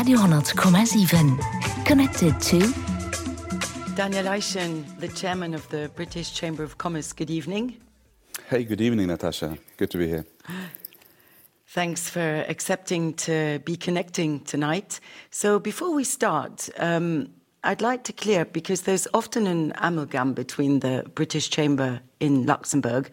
Radio,7. Connected to Daniel Eischen, the chairman of the British Chamber of Commerce. Good evening. Hey, good evening, Natasha. Good to be here. Thanks for accepting to be connecting tonight. So before we start, I'd like to clear, because there's often an amalgam between the British Chamber in Luxembourg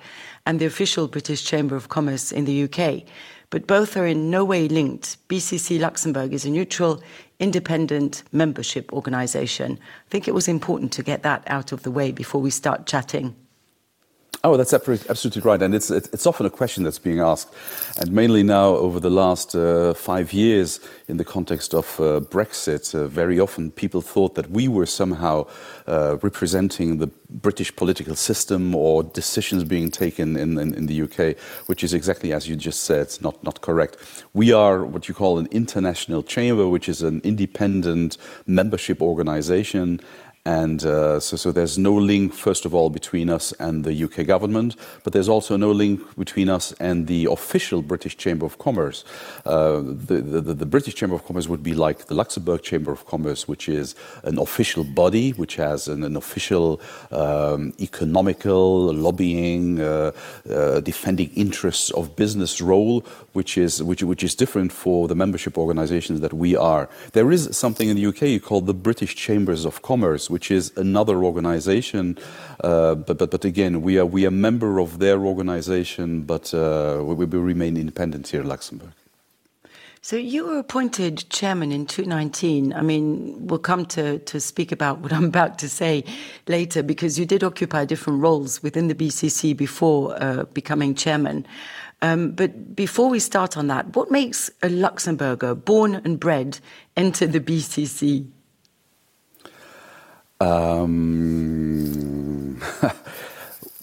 and the official British Chamber of Commerce in the UK. But both are in no way linked. BCC Luxembourg is a neutral, independent membership organisation. I think it was important to get that out of the way before we start chatting. Oh, that's absolutely right. And it's often a question that's being asked. And mainly now, over the last 5 years, in the context of Brexit, very often people thought that we were somehow representing the British political system or decisions being taken in the UK, which is exactly as you just said, not correct. We are what you call an international chamber, which is an independent membership organisation. And so there's no link, first of all, between us and the UK government, but there's also no link between us and the official British Chamber of Commerce. The British Chamber of Commerce would be like the Luxembourg Chamber of Commerce, which is an official body, which has an official economical, lobbying, defending interests of business role, which is different for the membership organizations that we are. There is something in the UK called the British Chambers of Commerce, which is another organization, but again, we are a member of their organization, but we remain independent here in Luxembourg. So you were appointed chairman in 2019. I mean, we'll come to speak about what I'm about to say later, because you did occupy different roles within the BCC before becoming chairman. But before we start on that, what makes a Luxembourger, born and bred, enter the BCC?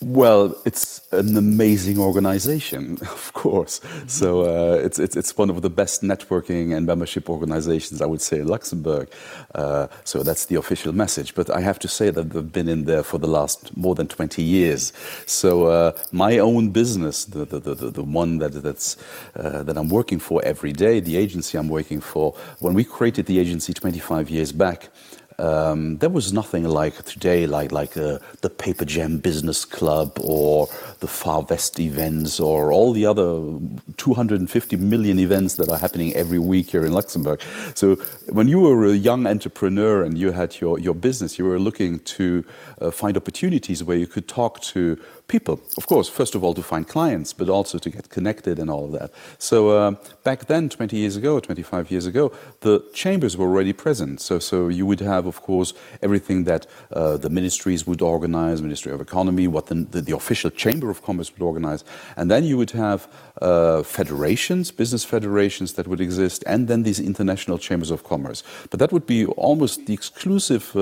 Well, it's an amazing organization, of course. Mm-hmm. So it's one of the best networking and membership organizations, I would say, in Luxembourg. So that's the official message. But I have to say that I've been in there for the last more than 20 years. So my own business, the one that I'm working for every day, the agency I'm working for, when we created the agency 25 years back, there was nothing like today, like the Paper Jam Business Club or the Far West events or all the other 250 million events that are happening every week here in Luxembourg. So when you were a young entrepreneur and you had your business, you were looking to find opportunities where you could talk to people. Of course, first of all, to find clients, but also to get connected and all of that. So back then, 25 years ago, the chambers were already present. So you would have, of course, everything that the ministries would organize, Ministry of Economy, what the official Chamber of Commerce would organize. And then you would have federations, business federations that would exist, and then these international chambers of commerce. But that would be almost the exclusive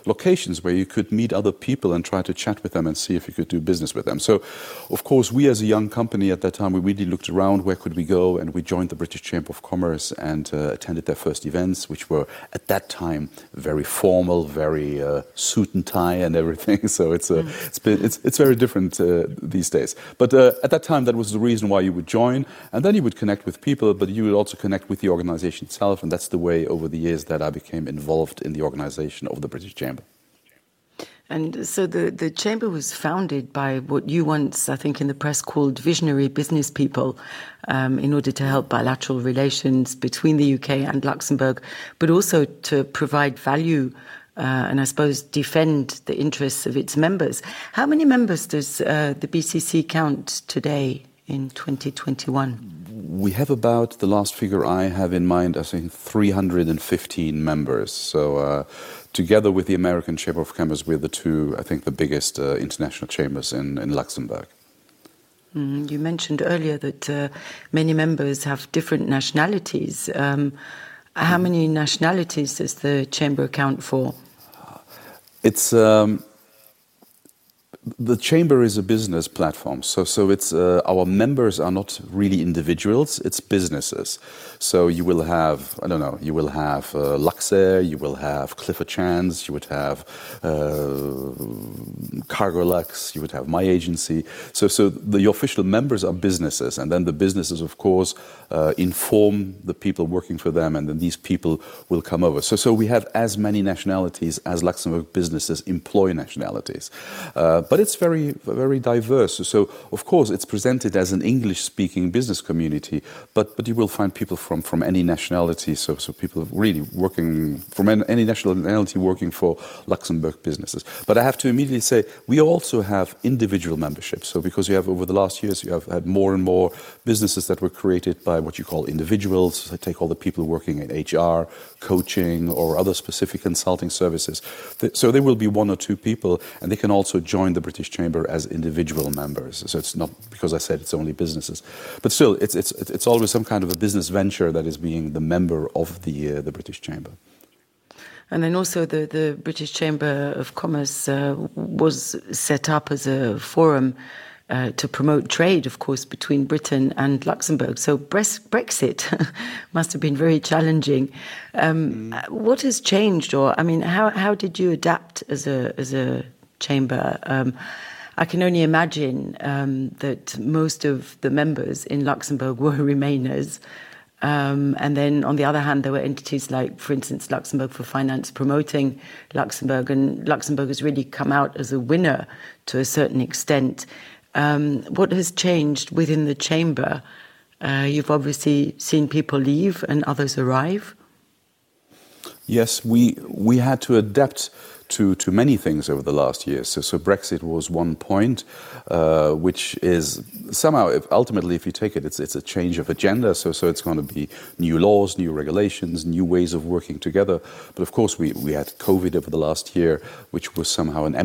locations where you could meet other people and try to chat with them and see if you could do business with them. So, of course, we as a young company at that time, we really looked around, where could we go? And we joined the British Chamber of Commerce and attended their first events, which were at that time very formal, very suit and tie and everything. So it's very different these days. But at that time, that was the reason why you would join, and then you would connect with people, but you would also connect with the organization itself, and that's the way over the years that I became involved in the organization of the British Chamber. And so the Chamber was founded by what you once, I think in the press, called visionary business people in order to help bilateral relations between the UK and Luxembourg, but also to provide value and I suppose defend the interests of its members. How many members does the BCC count today in 2021? We have about, the last figure I have in mind, I think 315 members. So together with the American Chamber of Commerce, we're the two, I think, the biggest international chambers in Luxembourg. You mentioned earlier that many members have different nationalities. How many nationalities does the Chamber account for? It's The chamber is a business platform, so it's our members are not really individuals; it's businesses. So you will have, I don't know, you will have Luxair, you will have Clifford Chance, you would have Cargolux, you would have my agency. So the official members are businesses, and then the businesses, of course, inform the people working for them, and then these people will come over. So we have as many nationalities as Luxembourg businesses employ nationalities. But it's very, very diverse. So, of course, it's presented as an English-speaking business community, but you will find people from any nationality, so people really working from any nationality working for Luxembourg businesses. But I have to immediately say, we also have individual memberships. So because you have, over the last years, you have had more and more businesses that were created by what you call individuals. I take all the people working in HR, coaching, or other specific consulting services. So there will be one or two people, and they can also join the British Chamber as individual members. So it's not because I said it's only businesses, but still, it's always some kind of a business venture that is being the member of the British Chamber. And then also the British Chamber of Commerce was set up as a forum to promote trade, of course, between Britain and Luxembourg. So Brexit must have been very challenging. What has changed, or I mean, how did you adapt as a chamber? I can only imagine that most of the members in Luxembourg were Remainers. And then, on the other hand, there were entities like, for instance, Luxembourg for Finance promoting Luxembourg, and Luxembourg has really come out as a winner to a certain extent. What has changed within the chamber? You've obviously seen people leave and others arrive. Yes, we had to adapt to many things over the last years. So Brexit was one point, which is somehow, ultimately, if you take it, it's a change of agenda. So it's going to be new laws, new regulations, new ways of working together. But of course, we had COVID over the last year, which was somehow it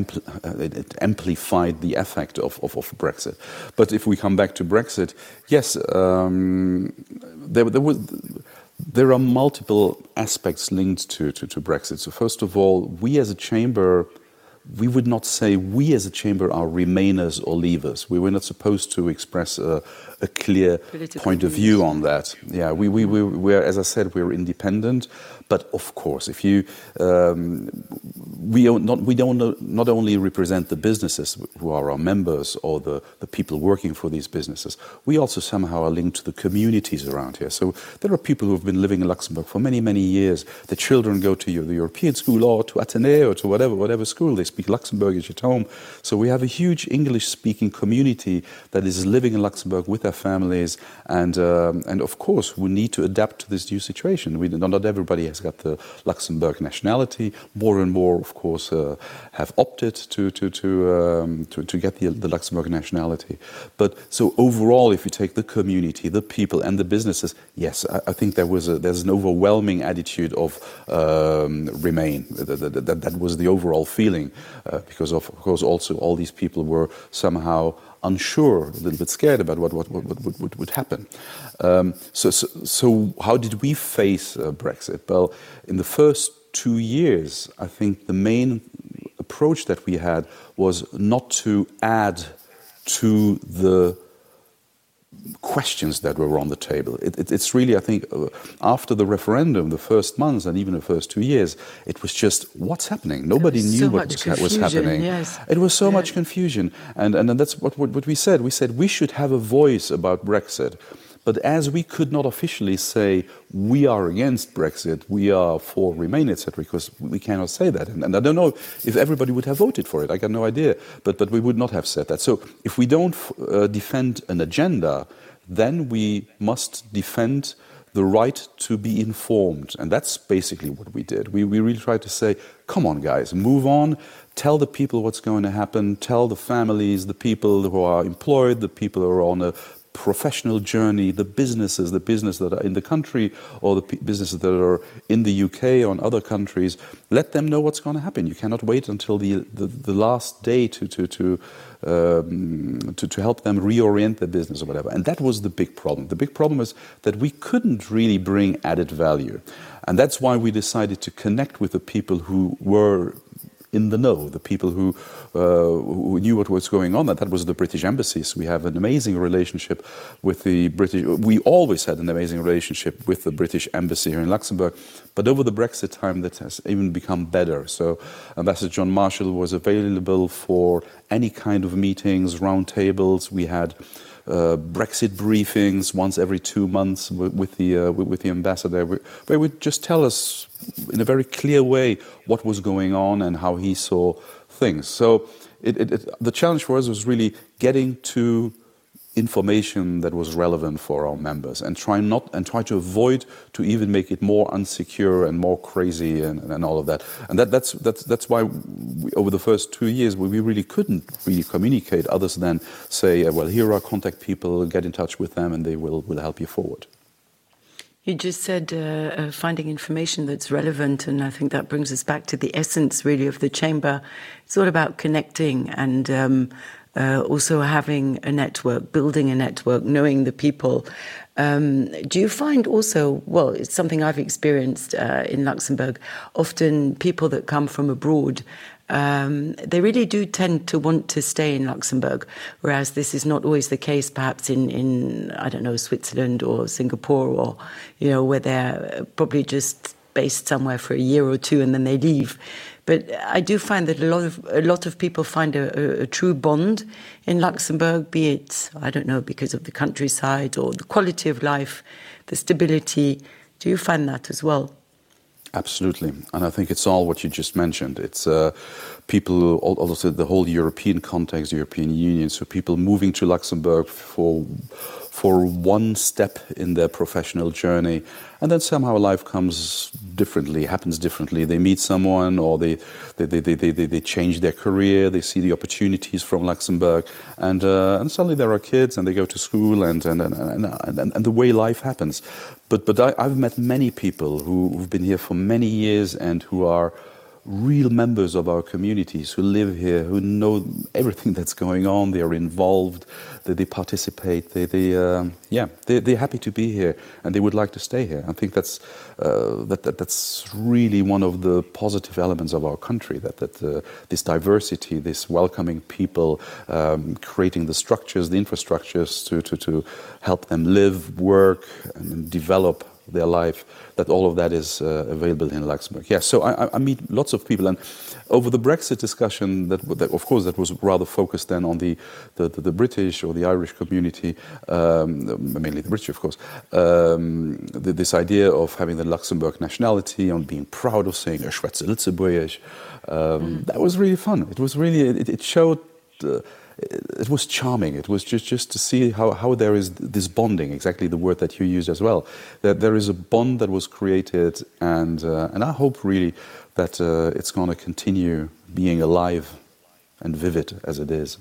amplified the effect of Brexit. But if we come back to Brexit, yes, there are multiple aspects linked to Brexit. So first of all, we as a chamber, we would not say we as a chamber are Remainers or Leavers. We were not supposed to express a clear point of view on that. Yeah, we're, as I said, we're independent. But of course, if you, we don't not only represent the businesses who are our members or the people working for these businesses, we also somehow are linked to the communities around here. So there are people who have been living in Luxembourg for many, many years. The children go to the European school or to Athénée or to whatever school. They speak Luxembourgish at home. So we have a huge English-speaking community that is living in Luxembourg with their families, and of course we need to adapt to this new situation. Not everybody has got the Luxembourg nationality. More and more, of course, have opted to get the Luxembourg nationality. But so overall, if you take the community, the people, and the businesses, yes, I think there's an overwhelming attitude of remain. That was the overall feeling, because of course also all these people were somehow unsure, a little bit scared about what would happen. So how did we face Brexit? Well, in the first 2 years, I think the main approach that we had was not to add to the questions that were on the table. It's really, I think, after the referendum, the first months and even the first 2 years, it was just, what's happening? Nobody knew what was happening. Yes. It was so much confusion. And that's what we said. We said we should have a voice about Brexit. But as we could not officially say we are against Brexit, we are for Remain, etc., because we cannot say that. And I don't know if everybody would have voted for it. I got no idea. But we would not have said that. So if we don't defend an agenda, then we must defend the right to be informed. And that's basically what we did. We really tried to say, come on, guys, move on. Tell the people what's going to happen. Tell the families, the people who are employed, the people who are on a professional journey, the businesses that are in the country or the businesses that are in the UK or in other countries, let them know what's going to happen. You cannot wait until the last day to help them reorient their business or whatever. And that was the big problem. The big problem is that we couldn't really bring added value. And that's why we decided to connect with the people who were in the know, the people who knew what was going on. That was the British embassies. We have an amazing relationship with the British. We always had an amazing relationship with the British embassy here in Luxembourg, but over the Brexit time, that has even become better. So Ambassador John Marshall was available for any kind of meetings, roundtables. We had Brexit briefings once every 2 months with the ambassador, where he would just tell us in a very clear way what was going on and how he saw things. So the challenge for us was really getting to information that was relevant for our members and try to avoid to even make it more unsecure and more crazy and all of that. And that's why over the first 2 years we really couldn't really communicate others than say, well, here are contact people, get in touch with them and they will help you forward. You just said finding information that's relevant, and I think that brings us back to the essence, really, of the Chamber. It's all about connecting and also having a network, building a network, knowing the people. Do you find also, well, it's something I've experienced in Luxembourg, often people that come from abroad, they really do tend to want to stay in Luxembourg, whereas this is not always the case perhaps in I don't know, Switzerland or Singapore, or, you know, where they're probably just based somewhere for a year or two and then they leave. But I do find that a lot of people find a true bond in Luxembourg, be it, I don't know, because of the countryside or the quality of life, the stability. Do you find that as well? Absolutely. And I think it's all what you just mentioned. It's people, also the whole European context, the European Union, so people moving to Luxembourg for one step in their professional journey, and then somehow life comes differently, happens differently. They meet someone, or they change their career. They see the opportunities from Luxembourg, and suddenly there are kids, and they go to school, and the way life happens. But I've met many people who've been here for many years and who are real members of our communities, who live here, who know everything that's going on. They are involved, they participate, they're happy to be here and they would like to stay here. I think that's really one of the positive elements of our country, that this diversity, this welcoming people, creating the structures, the infrastructures to help them live, work and develop their life, that all of that is available in Luxembourg. Yeah, so I meet lots of people, and over the Brexit discussion, that of course that was rather focused then on the British or the Irish community, mainly the British, of course. This idea of having the Luxembourg nationality, on being proud of saying "Ich schwätze Lützeburgisch," that was really fun. It was really it showed. It was charming. It was just to see how there is this bonding, exactly the word that you used as well. That there is a bond that was created, and I hope really that it's going to continue being alive and vivid as it is.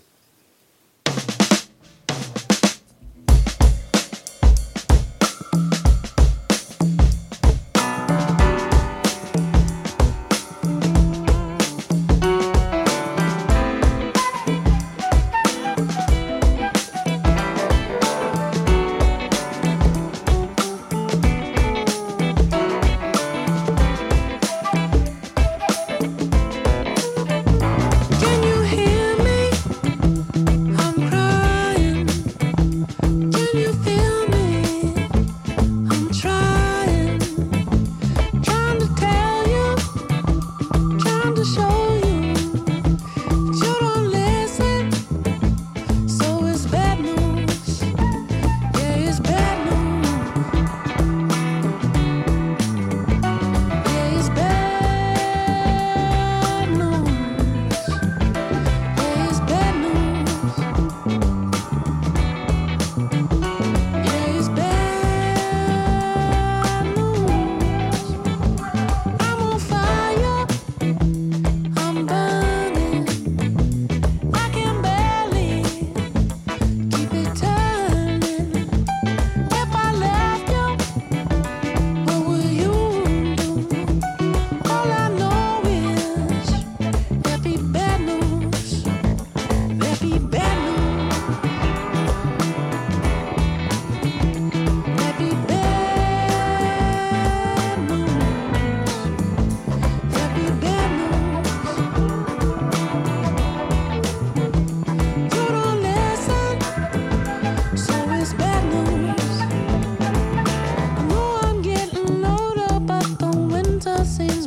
Can you hear me?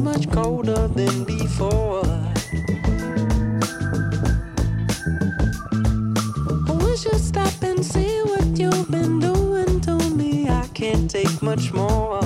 much colder than before. We should stop and see what you've been doing to me. I can't take much more.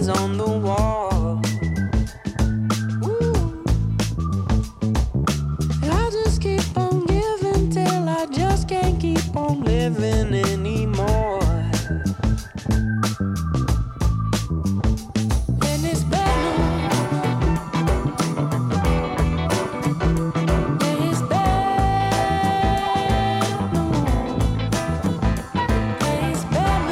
On the wall. Ooh. I'll just keep on giving till I just can't keep on living anymore. And it's better. It's better. It's better.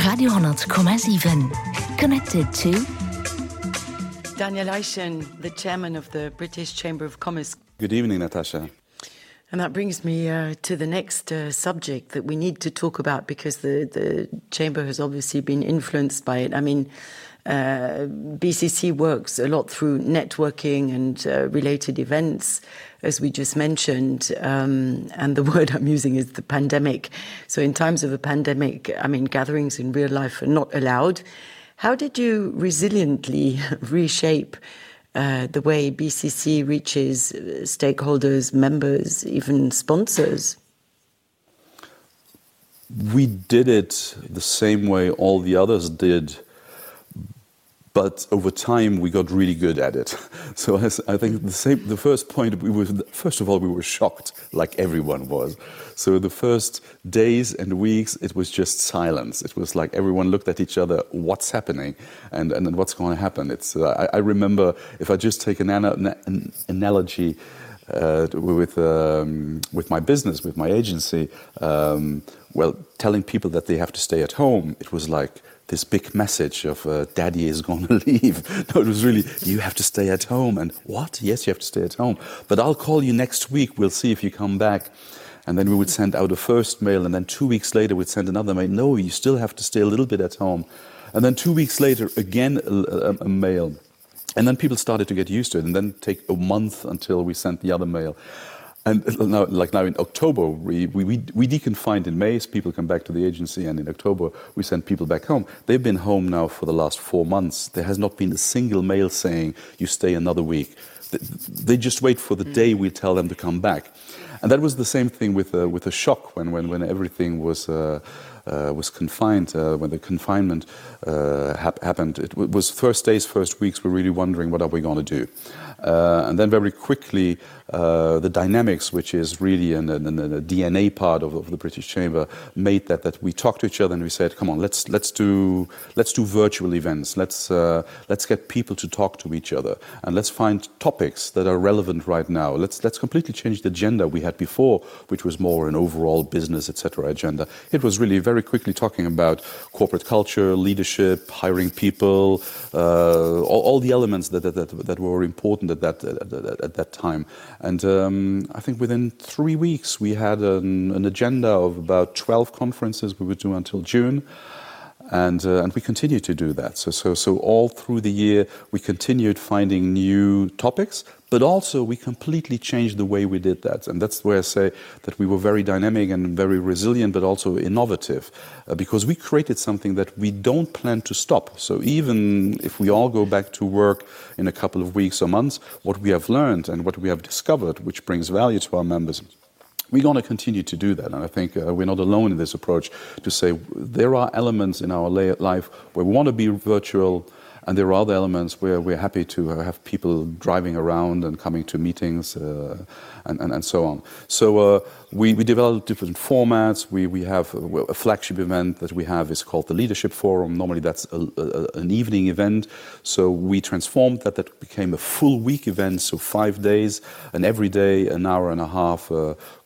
Radio 100,7. Connected to Daniel Eischen, the chairman of the British Chamber of Commerce. Good evening, Natasha. And that brings me to the next subject that we need to talk about, because the Chamber has obviously been influenced by it. I mean, BCC works a lot through networking and related events, as we just mentioned, and the word I'm using is the pandemic. So in times of a pandemic, I mean, gatherings in real life are not allowed. How did you resiliently reshape the way BCC reaches stakeholders, members, even sponsors? We did it the same way all the others did, but over time we got really good at it. So I think the first point, first of all, we were shocked, like everyone was. So the first days and weeks, it was just silence. It was like everyone looked at each other, what's happening and what's going to happen. I remember, if I just take an analogy with my business, with my agency, telling people that they have to stay at home, it was like this big message of daddy is going to leave. No, it was really, you have to stay at home. And what? Yes, you have to stay at home. But I'll call you next week. We'll see if you come back. And then we would send out a first mail. And then 2 weeks later, we'd send another mail. No, you still have to stay a little bit at home. And then 2 weeks later, again, a mail. And then people started to get used to it. And then take a month until we sent the other mail. And now in October, we deconfined in May, so people come back to the agency, and in October we send people back home. They've been home now for the last 4 months. There has not been a single mail saying, you stay another week. They just wait for the day we tell them to come back. And that was the same thing with a shock when everything was confined, when the confinement happened. It was first days, first weeks, we're really wondering what are we going to do. And then very quickly, the dynamics, which is really a DNA part of the British Chamber, made that we talked to each other and we said, come on, let's do virtual events. Let's get people to talk to each other, and let's find topics that are relevant right now. Let's completely change the agenda we had before, which was more an overall business, etc. agenda. It was really very quickly talking about corporate culture, leadership, hiring people, all the elements that were important at that time. And I think within 3 weeks we had an agenda of about 12 conferences we would do until June. And we continue to do that. So all through the year we continued finding new topics, but also we completely changed the way we did that. And that's where I say that we were very dynamic and very resilient, but also innovative, because we created something that we don't plan to stop. So even if we all go back to work in a couple of weeks or months, what we have learned and what we have discovered, which brings value to our members, we're going to continue to do that. And I think we're not alone in this approach to say there are elements in our life where we want to be virtual, and there are other elements where we're happy to have people driving around and coming to meetings and so on. So we developed different formats. We have a flagship event that we have is called the Leadership Forum. Normally that's an evening event. So we transformed that. That became a full week event, so 5 days, and every day an hour and a half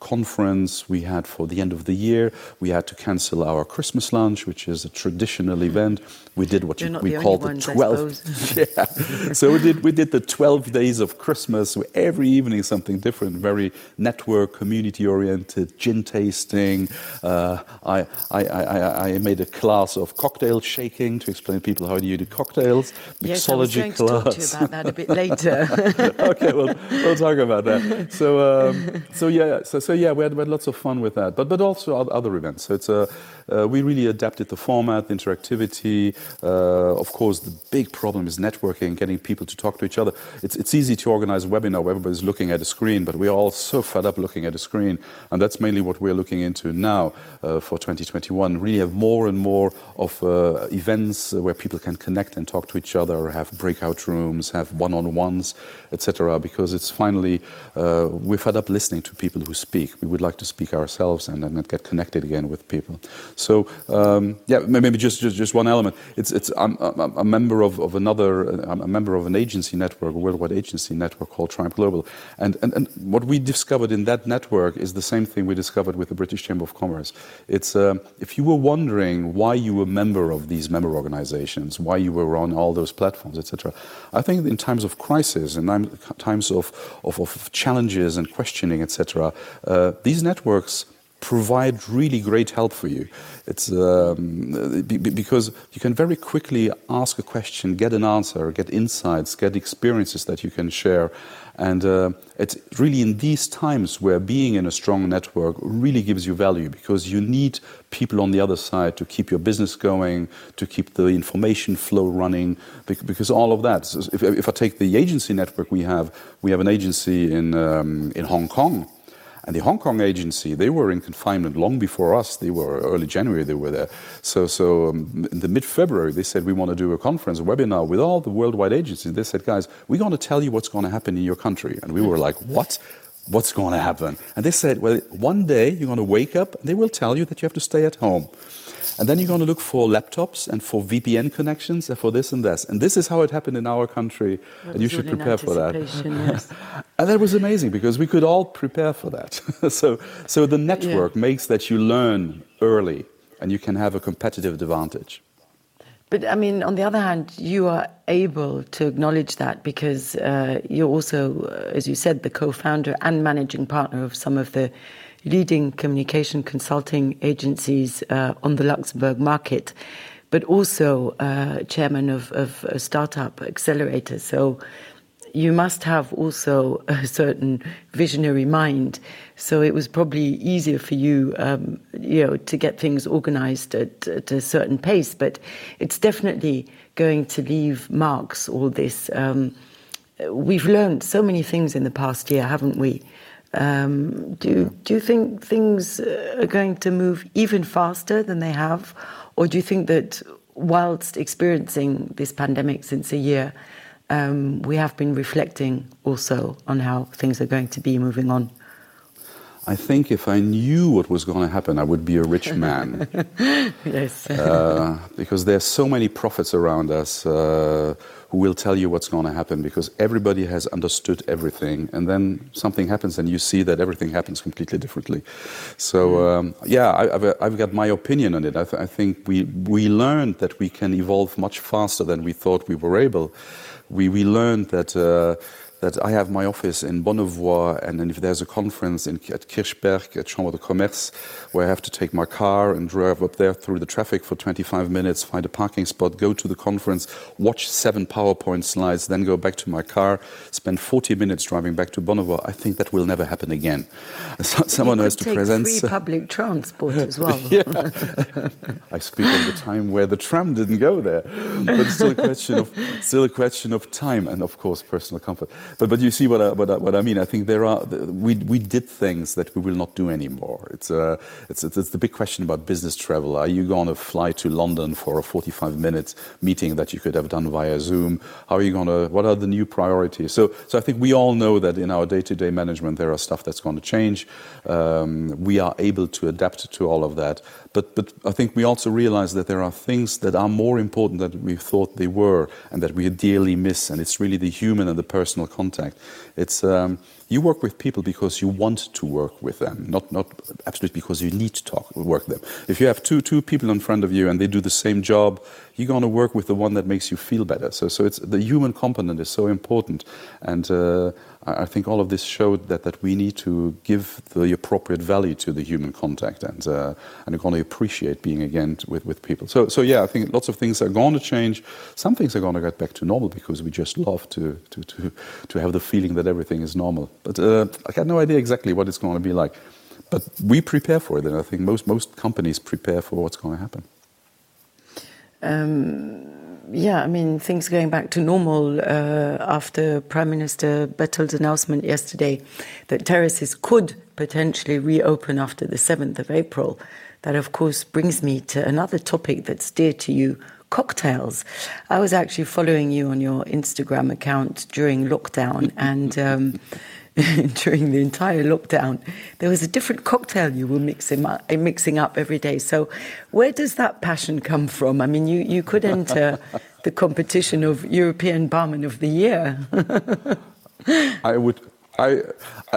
conference. We had for the end of the year, we had to cancel our Christmas lunch, which is a traditional event. We did what we called the 12. Yeah. So we did the 12 days of Christmas. So every evening something different, very network, community oriented, gin tasting. I made a class of cocktail shaking to explain to people how do you do cocktails. Yes, I was going to talk to you about that a bit later. Okay, well, we'll talk about that. So yeah, we had lots of fun with that, but also other events. So it's we really adapted the format, the interactivity. Of course, the big problem is networking, getting people to talk to each other. It's easy to organize a webinar where everybody's looking at a screen, but we're all so fed up looking at a screen, and that's mainly what we're looking into now for 2021. Really have more and more of events where people can connect and talk to each other, have breakout rooms, have one-on-ones, etc. Because it's finally we're fed up listening to people who speak. We would like to speak ourselves and get connected again with people. So yeah, maybe just one element. I'm a member of a member of an agency network, a worldwide agency network called Triumph Global, and what we discovered in that network is the same thing we discovered with the British Chamber of Commerce. It's if you were wondering why you were a member of these member organizations, why you were on all those platforms, etc. I think in times of crisis and times of challenges and questioning, etc. These networks provide really great help for you. It's because you can very quickly ask a question, get an answer, get insights, get experiences that you can share. And it's really in these times where being in a strong network really gives you value, because you need people on the other side to keep your business going, to keep the information flow running, because all of that. So if I take the agency network we have an agency in Hong Kong. And the Hong Kong agency, they were in confinement long before us. They were early January, they were there. So in the mid-February, they said, we want to do a conference, a webinar with all the worldwide agencies. They said, guys, we're going to tell you what's going to happen in your country. And we were like, what? What's going to happen? And they said, well, one day you're going to wake up and they will tell you that you have to stay at home. And then you're going to look for laptops and for VPN connections and for this and this. And this is how it happened in our country. And you should prepare for that. Yes. And that was amazing because we could all prepare for that. So the network makes that you learn early and you can have a competitive advantage. But I mean, on the other hand, you are able to acknowledge that because you're also, as you said, the co-founder and managing partner of some of the leading communication consulting agencies on the Luxembourg market, but also chairman of a startup accelerator. So you must have also a certain visionary mind. So it was probably easier for you, to get things organized at a certain pace. But it's definitely going to leave marks, all this. We've learned so many things in the past year, haven't we? Do you think things are going to move even faster than they have? Or do you think that whilst experiencing this pandemic since a year, we have been reflecting also on how things are going to be moving on? I think if I knew what was going to happen, I would be a rich man. Yes. Because there's so many prophets around us who will tell you what's going to happen, because everybody has understood everything, and then something happens and you see that everything happens completely differently. So I've got my opinion on it. I think we learned that we can evolve much faster than we thought we were able. We learned that I have my office in Bonnevoie, and then if there's a conference at Kirchberg, at Chambre de Commerce, where I have to take my car and drive up there through the traffic for 25 minutes, find a parking spot, go to the conference, watch 7 PowerPoint slides, then go back to my car, spend 40 minutes driving back to Bonnevoie, I think that will never happen again. Someone has to present free public transport as well. Yeah. I speak of the time where the tram didn't go there, but it's still a question of time and, of course, personal comfort. But you see what I mean. I think we did things that we will not do anymore. It's the big question about business travel. Are you going to fly to London for a 45-minute meeting that you could have done via Zoom? How are you going to? What are the new priorities? So I think we all know that in our day-to-day management there are stuff that's going to change. We are able to adapt to all of that. But I think we also realize that there are things that are more important than we thought they were and that we dearly miss, and it's really the human and the personal contact. It's you work with people because you want to work with them, not absolutely because you need to work with them. If you have two people in front of you and they do the same job, you're going to work with the one that makes you feel better. So it's the human component is so important, and I think all of this showed that we need to give the appropriate value to the human contact, and we're going to appreciate being again with people. So yeah, I think lots of things are going to change. Some things are going to get back to normal because we just love to have the feeling that everything is normal. But I got no idea exactly what it's going to be like. But we prepare for it, and I think most companies prepare for what's going to happen. Yeah, I mean, things going back to normal after Prime Minister Bettel's announcement yesterday that terraces could potentially reopen after the 7th of April. That, of course, brings me to another topic that's dear to you, cocktails. I was actually following you on your Instagram account during lockdown, and during the entire lockdown, there was a different cocktail you were mixing up every day. So where does that passion come from? I mean, you could enter the competition of European Barman of the Year.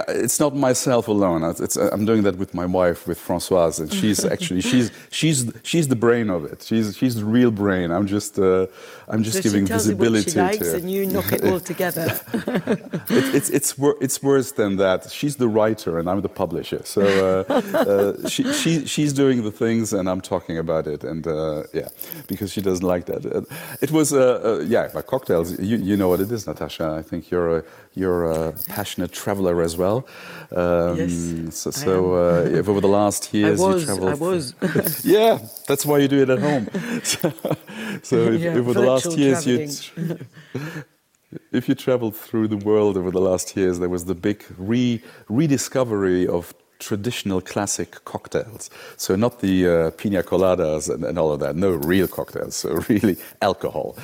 It's not myself alone. I'm doing that with my wife, with Françoise, and she's actually she's the brain of it. She's the real brain. I'm just giving visibility she tells you what she likes, to it. And you knock it all together. It's worse than that. She's the writer and I'm the publisher. So she's doing the things and I'm talking about it. And because she doesn't like that. It was but cocktails. You know what it is, Natasha. I think you're a passionate traveler as well. Yes. If over the last years you traveled. I was. Yeah, that's why you do it at home. If over the last years if you traveled through the world over the last years, there was the big rediscovery of traditional classic cocktails. So not the pina coladas and all of that. No, real cocktails. So really alcohol.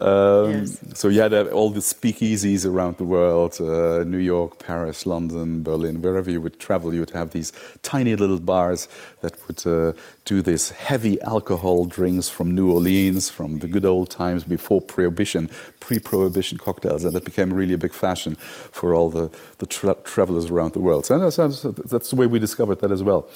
Yes. So you had all the speakeasies around the world, New York, Paris, London, Berlin, wherever you would travel, you would have these tiny little bars that would do this heavy alcohol drinks from New Orleans, from the good old times before Prohibition, pre-Prohibition cocktails. And that became really a big fashion for all the travelers around the world. So that's the way we discovered that as well,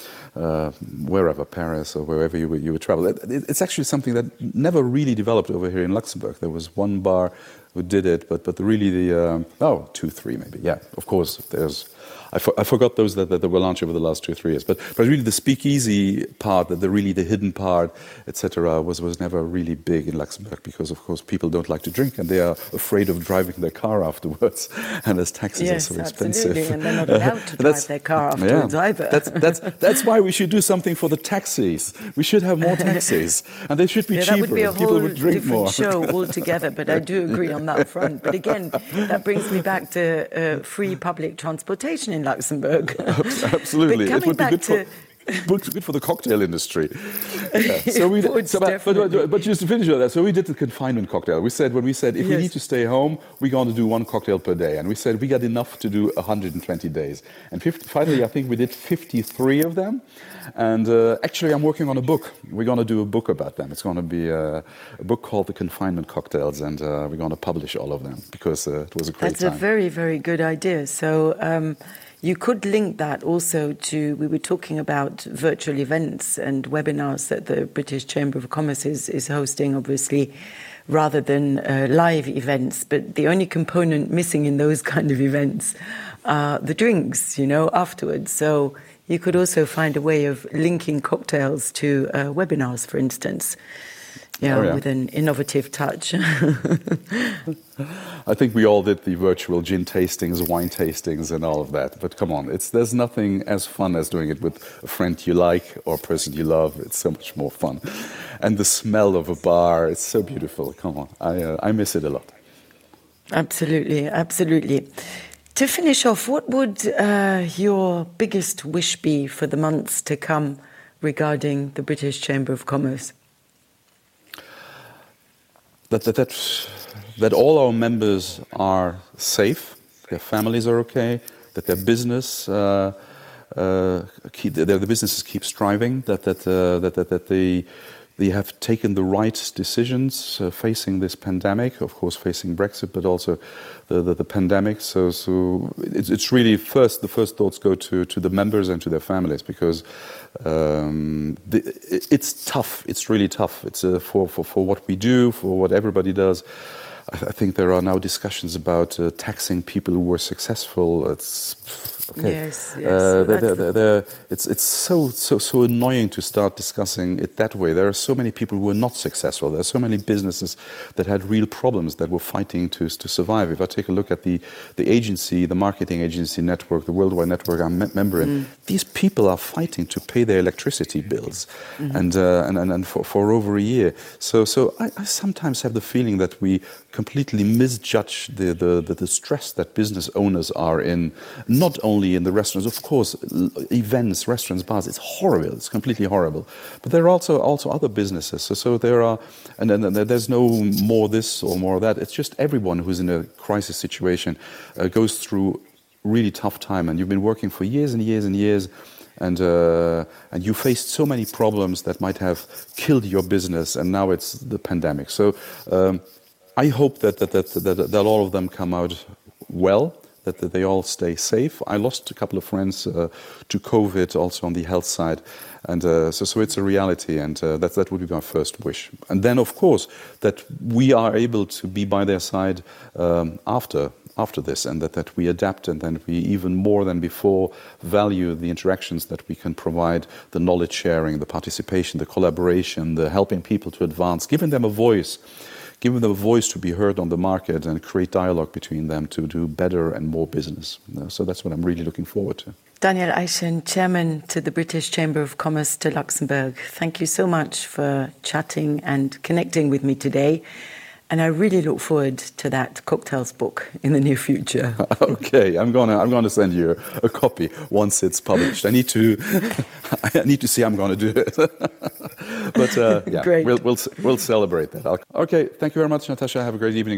wherever, Paris or wherever you would travel. It's actually something that never really developed over here in Luxembourg. There was one bar who did it, but really 2, 3 maybe. Yeah, of course, there's... I forgot those that were launched over the last 2 or 3 years. But really the speakeasy part, the hidden part, etc., was never really big in Luxembourg because, of course, people don't like to drink and they are afraid of driving their car afterwards. And as taxes are so expensive. Yes, absolutely. And they're not allowed to drive their car afterwards either. That's why we should do something for the taxis. We should have more taxis. And they should be cheaper. That would be a people whole would drink different more. show altogether, but I do agree on that front. But again, that brings me back to free public transportation in Luxembourg. Absolutely. It would be good for the cocktail industry. Yeah. But just to finish on that, so we did the confinement cocktail. We said if we need to stay home, we're going to do 1 cocktail per day. And we said we got enough to do 120 days. And finally, I think we did 53 of them. And actually, I'm working on a book. We're going to do a book about them. It's going to be a book called The Confinement Cocktails. And we're going to publish all of them because it was a great time. That's a very, very good idea. So... you could link that also to, we were talking about virtual events and webinars that the British Chamber of Commerce is hosting, obviously, rather than live events. But the only component missing in those kind of events are the drinks, afterwards. So you could also find a way of linking cocktails to webinars, for instance. With an innovative touch. I think we all did the virtual gin tastings, wine tastings, and all of that. But come on, there's nothing as fun as doing it with a friend you like or a person you love. It's so much more fun. And the smell of a bar, it's so beautiful. Come on, I miss it a lot. Absolutely, absolutely. To finish off, what would your biggest wish be for the months to come regarding the British Chamber of Commerce? That all our members are safe, their families are okay, that their business the businesses keep striving, that they have taken the right decisions facing this pandemic, of course facing Brexit, but also the pandemic. So it's really the first thoughts go to the members and to their families, because it's tough. It's really tough. It's for what we do, for what everybody does. I think there are now discussions about taxing people who were successful. It's okay. Yes. It's so annoying to start discussing it that way. There are so many people who were not successful. There are so many businesses that had real problems, that were fighting to survive. If I take a look at the agency, the marketing agency network, the worldwide network I'm a member in, these people are fighting to pay their electricity bills, and for over a year. So I sometimes have the feeling that we completely misjudge the stress that business owners are in, not only in the restaurants, of course, events, restaurants, bars, it's horrible, it's completely horrible. But there are also other businesses. So there are, and there's no more this or more that. It's just everyone who's in a crisis situation goes through really tough time. And you've been working for years and years and years, and you faced so many problems that might have killed your business, and now it's the pandemic. So I hope that all of them come out well, that they all stay safe. I lost a couple of friends to COVID, also on the health side, and so it's a reality, and that would be my first wish. And then, of course, that we are able to be by their side after this, and that we adapt, and then we even more than before value the interactions that we can provide, the knowledge sharing, the participation, the collaboration, the helping people to advance, giving them a voice to be heard on the market, and create dialogue between them to do better and more business. So that's what I'm really looking forward to. Daniel Eichen, Chairman to the British Chamber of Commerce to Luxembourg, thank you so much for chatting and connecting with me today. And I really look forward to that cocktails book in the near future. Okay, I'm gonna send you a copy once it's published. I need to see how I'm gonna do it. But yeah, Great. We'll celebrate that. Okay, thank you very much, Natasha. Have a great evening.